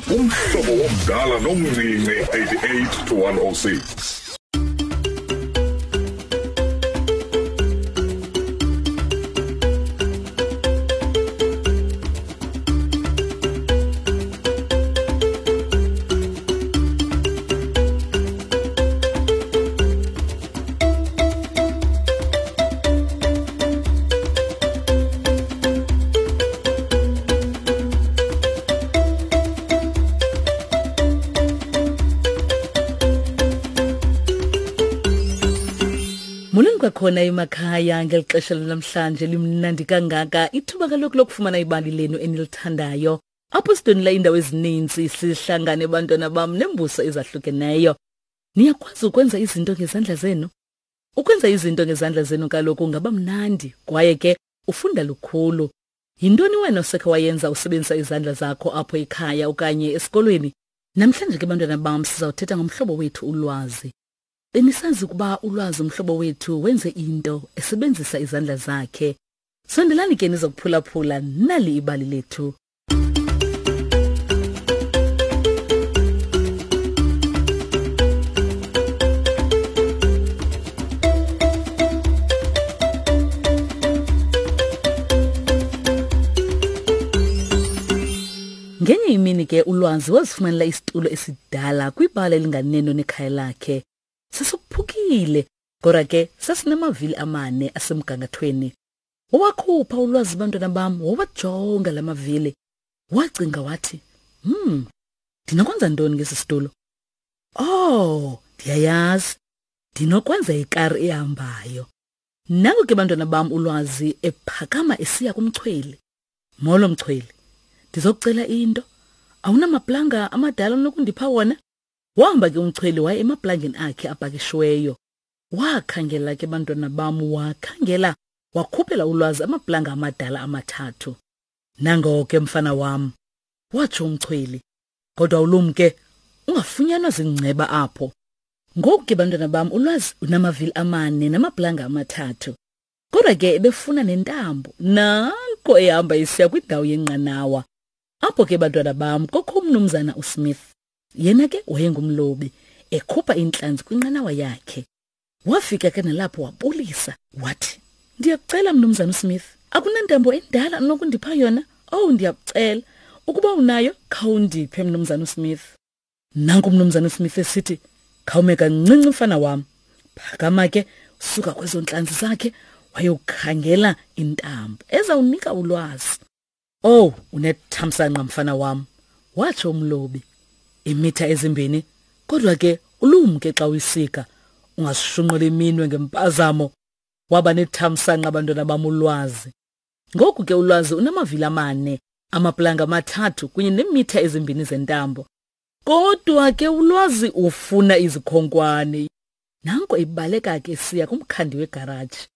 Umhlobo womdala nomncinci 88 to 106. Molweni kwakhona emakhaya ngeli xesha lanamhlanje limnandi kangaka ithuba kaloku lokufumana ibali lenu enilithandayo apho sidonela iindawo ezininzi sihlangane bantwana bam nembuso ezahlukeneyo Niyakwazi ukwenza izinto ngezandla zenu? Ukwenza izinto ngezandla zenu kaloku ngaba mnandi kwaye ke ufunda lukhulu. Yintoni wena osekhe wayenza usebenzisa izandla zakho apho ekhaya okanye esikolweni? Namhlanje ke bantwana bam sizawuthetha ngomhlobo wethu ulwazi. Benisazi ukuba ulwazi umhlobo wethu wenze into esebenzisa izandla zakhe. Sondelani ke nizokuphulaphula nali ibali lethu. Ngenye imini ke ulwazi wazifumanela isitulo esidala kwibala elinganeno nekhaya lakhe. Sasiphukile, kodwa ke sasinamavili amane asemgangathweni. Wawakhupha ulwazi bantwana bam, wawajonga la mavili. Wacinga wathi, "Hmm, ndinokwenza ntoni ngesi situlo? Oh, ndiyayazi. Ndinokwenza ikari ehambayo." Nango ke bantwana bam ulwazi ephakama esiya kumchweli. Molo mchweli, ndizokucela into. Awunamaplanga amadala onokundipha wona? Wahamba ke umchweli waye emaplangeni akhe apakishiweyo. Wakhangela ke bantwana bam, wakhangela, wakhuphela ulwazi amaplanga amadala amathathu. Nango ke mfana wam, watsho umchweli. Kodwa ulumke, ungafunyanwa zingceba apho. Ngoku ke bantwana bam, ulwazi unamavili amane namaplanga amathathu. Kodwa ke ebefuna nentambo, nanko ehamba isiya kwindawo yenqanawa. Apho ke bantwana bam kokho umnumzana uSmith. Yena ke wayengumlobi, ekhupha intlanzi kwinqanawa yakhe. Wafika ke nalapho wabulisa, wathi, Ndiyakucela mnumzana uSmith, akunantambo endala onokundipha yona? Owu, ndiyakucela, ukuba unayo, khawundiphe mnumzana uSmith. Nanku umnumzana uSmith esithi, khawume kancinci mfana wam. Phakama ke, suka kwezo ntlanzi zakhe, wayokhangela intambo ezawunika ulwazi. Owu, unethamsanqa mfana wam, watsho umlobi. Imitha ezimbini, kodwa ke ulumke xa uyisika, ungazishunqula iminwe ngempazamo. Waba nethamsanqa abantwana bam ulwazi. Ngoku ke ulwazi unamavili amane, amaplanga amathathu kunye neemitha ezimbini zentambo. Kodwa ke ulwazi ufuna izikhonkwane. Nanko ibaleka ke siya kumkhandi wegaraji.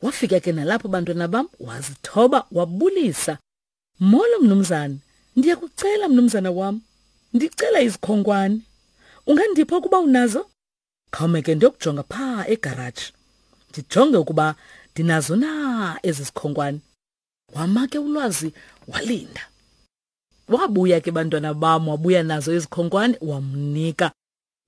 Wafika ke nalapho bantwana bam wazithoba wabulisa. Molo mnumzana, ndiyakucela mnumzana wam. Ndicela izikhonkwane. Ungandipha ukuba unazo? Khawume ke ndiyokujonga phaa egaraji. Ndijonge ukuba ndinazo na ezi zikhonkwane. Wama ke ulwazi walinda. Wabuya ke bantwana bam wabuya nazo izikhonkwane wamnika.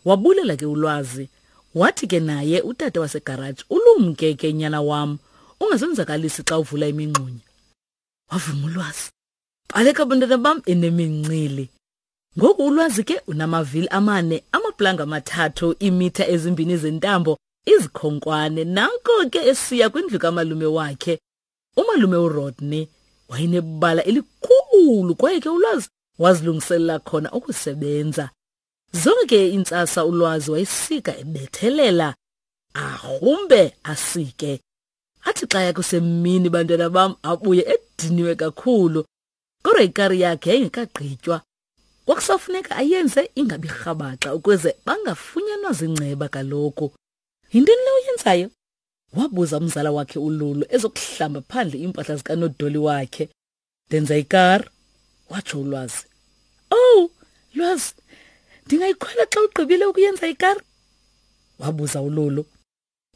Wabulela ke ulwazi. Wathi ke naye utata wasegaraji, ulumke ke nyana wam, ungazenzakalisi xa uvula imingxunya. Wavuma ulwazi. Baleka bantwana bam enemincili. Ngoku ulwazi ke unamavili amane, amaplanga amathathu, iimitha ezimbini zentambo, izikhonkwane. Nanko ke esiya kwindlu kamalume wakhe. Umalume uRodney wayenebala elikhulu kwaye ke ulwazi wazilungiselela khona ukusebenza. Zonke iintsasa ulwazi wayesika ebethelela, arhumbe asike. Athi xa yakusemini bantwana bam abuye ediniwe kakhulu. Kodwa ikari yakhe yayingekagqitywa. Kwakusafuneka ayenze ingabi rhabaxa ukuze bangafunyanwa zingceba kaloku. Yintoni le uyenzayo? Wabuza umzala wakhe uLulu ezokuhlamba phandle iimpahla zikanodoli wakhe. Ndenza ikari, watsho uLwazi. Owu, Lwazi, ndingayikhwela xa ugqibile ukuyenza ikari? Wabuza uLulu.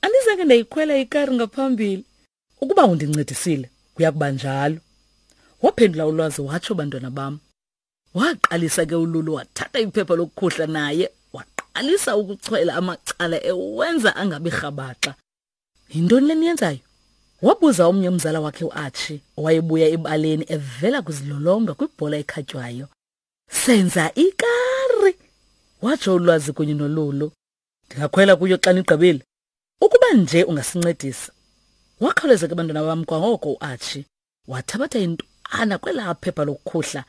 Andizange ndayikhwela ikari ngaphambili. Ukuba undincedisile, kuya kuba njalo. Waphendula uLwazi watsho, bantwana bam. Waqalisa ke uLulu wathatha iphepha lokukhuhla naye waqalisa ukuchwela amacala ewenza angabi rhabaxa. Yintoni le niyenzayo? Wabuza omnye umzala wakhe uArchie owayebuya ebaleni evela kuzilolonga kwibhola ekhatywayo. Senza ikari, watsho uLwazi kunye noLulu. Ndingakhwela kuyo xa nigqibile. Ukuba nje ungasincedisa. Wakhawuleza ke bantwana bam kwangoko uArchie wathabatha intwana kwelaa phepha lokukhuhla.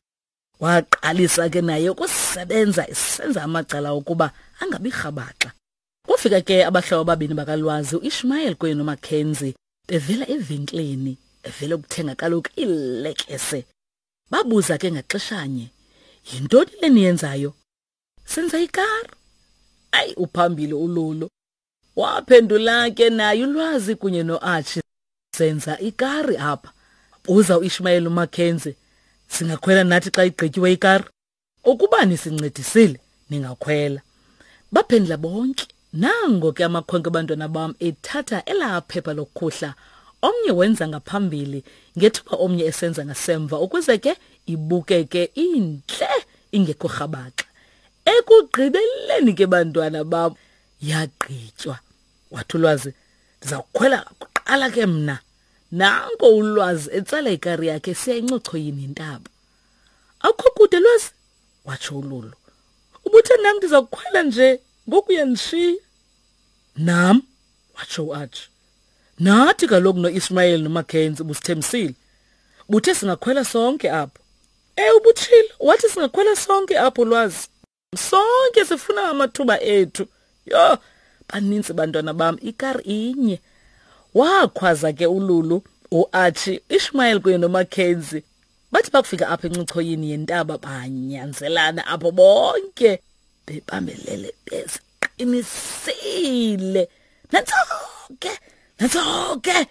Waqalisa ke naye ukusebenza esenza amacala ukuba angabi rhabaxa. Kufika ke abahlobo ababini bakaLwazi uIshmael kunye noMackenzie bevela evenkileni evela ukuthenga kaloku iilekese. Babuza ke ngaxeshanye, yintoni le niyenzayo? Senza ikari. Ayi uphambili uLulu. Waphendula ke naye uLwazi kunye noArchie, senza ikari apha. Buza uIshmael uMackenzie, singakhwela nathi xa igqityiwe ikari? Ukuba nisincedisile ningakhwela. Baphendula bonke. Nango ke amakhwenkwe abantwana bam ethatha elaa phepha lokukhuhla. Omnye wenza ngaphambili ngethuba omnye esenza ngasemva ukuze ke ibukeke intle ingekho rhabaxa. Ekugqibeleni ke bantwana bam yagqitywa. Wathi uLwazi, ndiza kukhwela kuqala ke mna. Nanko uLwazi etsala ikari yakhe esiya encochoyini yentaba. Akukho kude Lwazi, watsho uLulu. Ubuthe nam ndiza kukhwela nje ngoku uyandishiya. Nam, watsho uArchie. Nathi kaloku noIsmael noMackenzie ubusithembisile. Buthe singakhwela sonke apho. Ubutshilo, wathi singakhwela sonke apho Lwazi. Sonke sifuna amathuba ethu. Yho, baninzi bantwana bam, ikari inye. Wakhwaza ke uLulu, uArchie, Ishmael kunye noMackenzie. Bathi bakufika apha encochoyini yentaba banyanzelana apho bonke bebambelele beziqinisile. Nantso ke, nantso ke.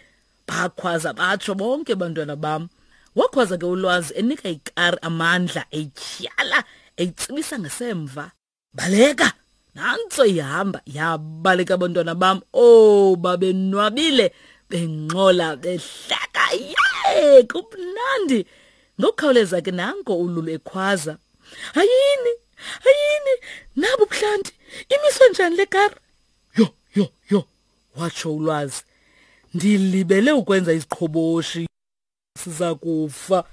Bakhwaza batsho bonke bantwana bam. Wakhwaza ke uLwazi enika ikari amandla etyhala eyitsibisa ngasemva. Baleka! Nantso ihamba yabaleka abantwana bam. Oh, babenwabile bengxola behleka. Yee, kumnandi. Ngokukhawuleza ke nanko uLulu ekhwaza. Hayini, hayini, nabo buhlanti. Imiswe njani le kari? Yho, yho, yho, watsho uLwazi. Ndilibele ukwenza iziqhoboshi. Siza kufa.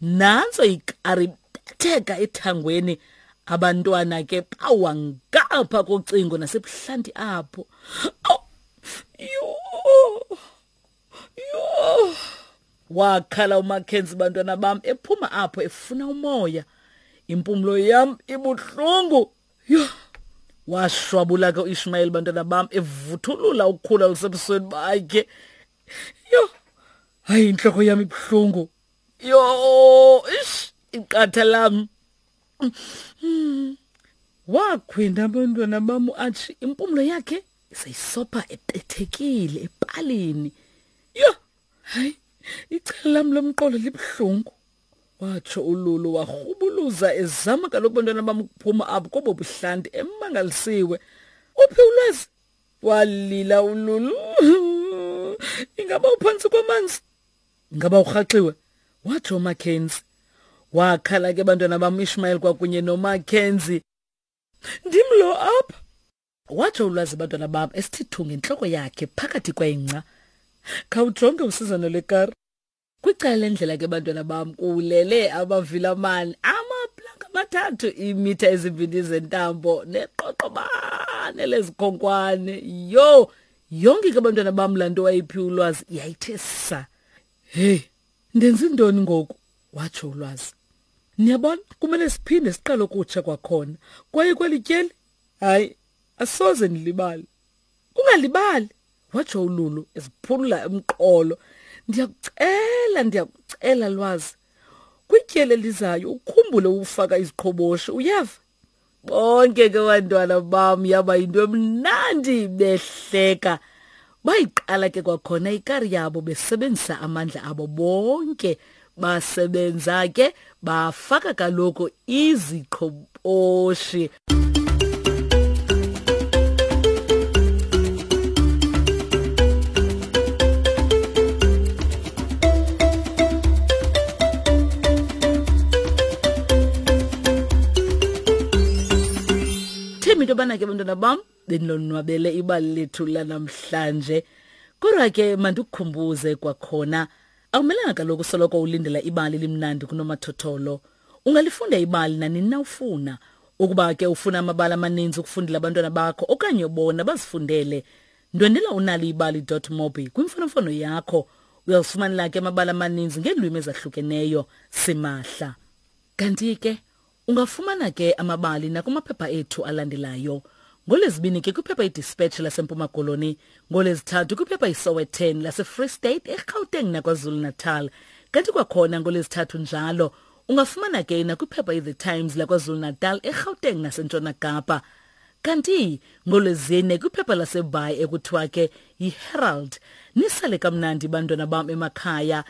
Nantso ikari betheka ethangweni. Abantwana ke bawa ngapha kocingo nasebuhlanti apho. Awu, yho, yho. Wakhala uMackenzie bantwana bam ephuma apho efuna umoya. Impumlo yam ibuhlungu. Yho. Washwabula ke uIshmael bantwana bam evuthulula ukukhula olusebusweni bakhe. Yho. Hayi inhloko yam ibuhlungu. Yho, ish, iqatha lam. Wakhwinda abantwana bam uArchie, impumlo yakhe seyisopha ebethekile epalini. Yho, hayi, icala lam lomqolo libuhlungu. Watsho uLulu warhubuluza ezama kaloku bantwana bam ukuphuma apho kobo buhlanti emangalisiwe. Uphi uLwazi? Walila uLulu. Ingaba uphantsi kwamanzi? Ingaba urhaxiwe? Watsho uMackenzie. Wakhala ke bantwana bam Ishmael kwakunye noMackenzie. Ndim lo apha. Watsho uLwazi bantwana bam esithi thu ngentloko yakhe phakathi kwengca. Khawujonge usizana lekari. Kwicala lendlela ke bantwana bam kulele amavilamani amaplanka amathathu iimitha ezimbini zentambo neqoqobane lezikhonkwane. Yho, yonke ke bantwana bam laa nto wayiphiwe uLwazi yayithe sa. Hey, ndenza intoni ngoku? Watsho uLwazi. Niyabona, kumele siphinde siqale ukutsha kwakhona. Kwaye kweli tyeli, hayi, asoze ndilibale. Ungalibali, watsho uLulu eziphulula umqolo. Ndiyakucela, ndiyakucela Lwazi. Kwityeli elizayo ukhumbule ukufaka iziqhoboshi, uyeva? Bonke ke bantwana bam yaba yinto emnandi behleka. Bayiqala ke kwakhona ikari yabo besebenzisa amandla abo bonke. Basebenza ke bafaka kaloku iziqhoboshi. Ndithemba into yobana ke bantwana bam benilonwabele ibali lethu lanamhlanje. Kodwa ke mandikukhumbuze kwakhona, akumelanga kaloku soloko ulindela ibali limnandi kunomathotholo. Ungalifunda ibali nanini na ufuna. Ukuba ke ufuna amabali amaninzi ukufundela abantwana bakho okanye bona bazifundele, ndwendela unaliibali.mobi kwimfonomfono yakho. Uyazifumanela ke amabali amaninzi ngeelwimi ezahlukeneyo simahla. Kanti ke Ungafumana ke amabali nakumaphepha ethu alandelayo. NgoLwezibini ke kwiphepha iDispatch laseMpuma Koloni, ngoLwezithathu kwiphepha iSowetan laseFree State, eGauteng naKwaZulu-Natal. Kanti kwakhona ngoLwezithathu njalo ungafumana ke nakwiphepha iThe Times laKwaZulu-Natal, eGauteng naseNtshona Kapa. Kanti ngoLwezine kwiphepha laseBhayi ekuthiwa ke yiHerald. Nisale kamnandi bantwana bam emakhaya.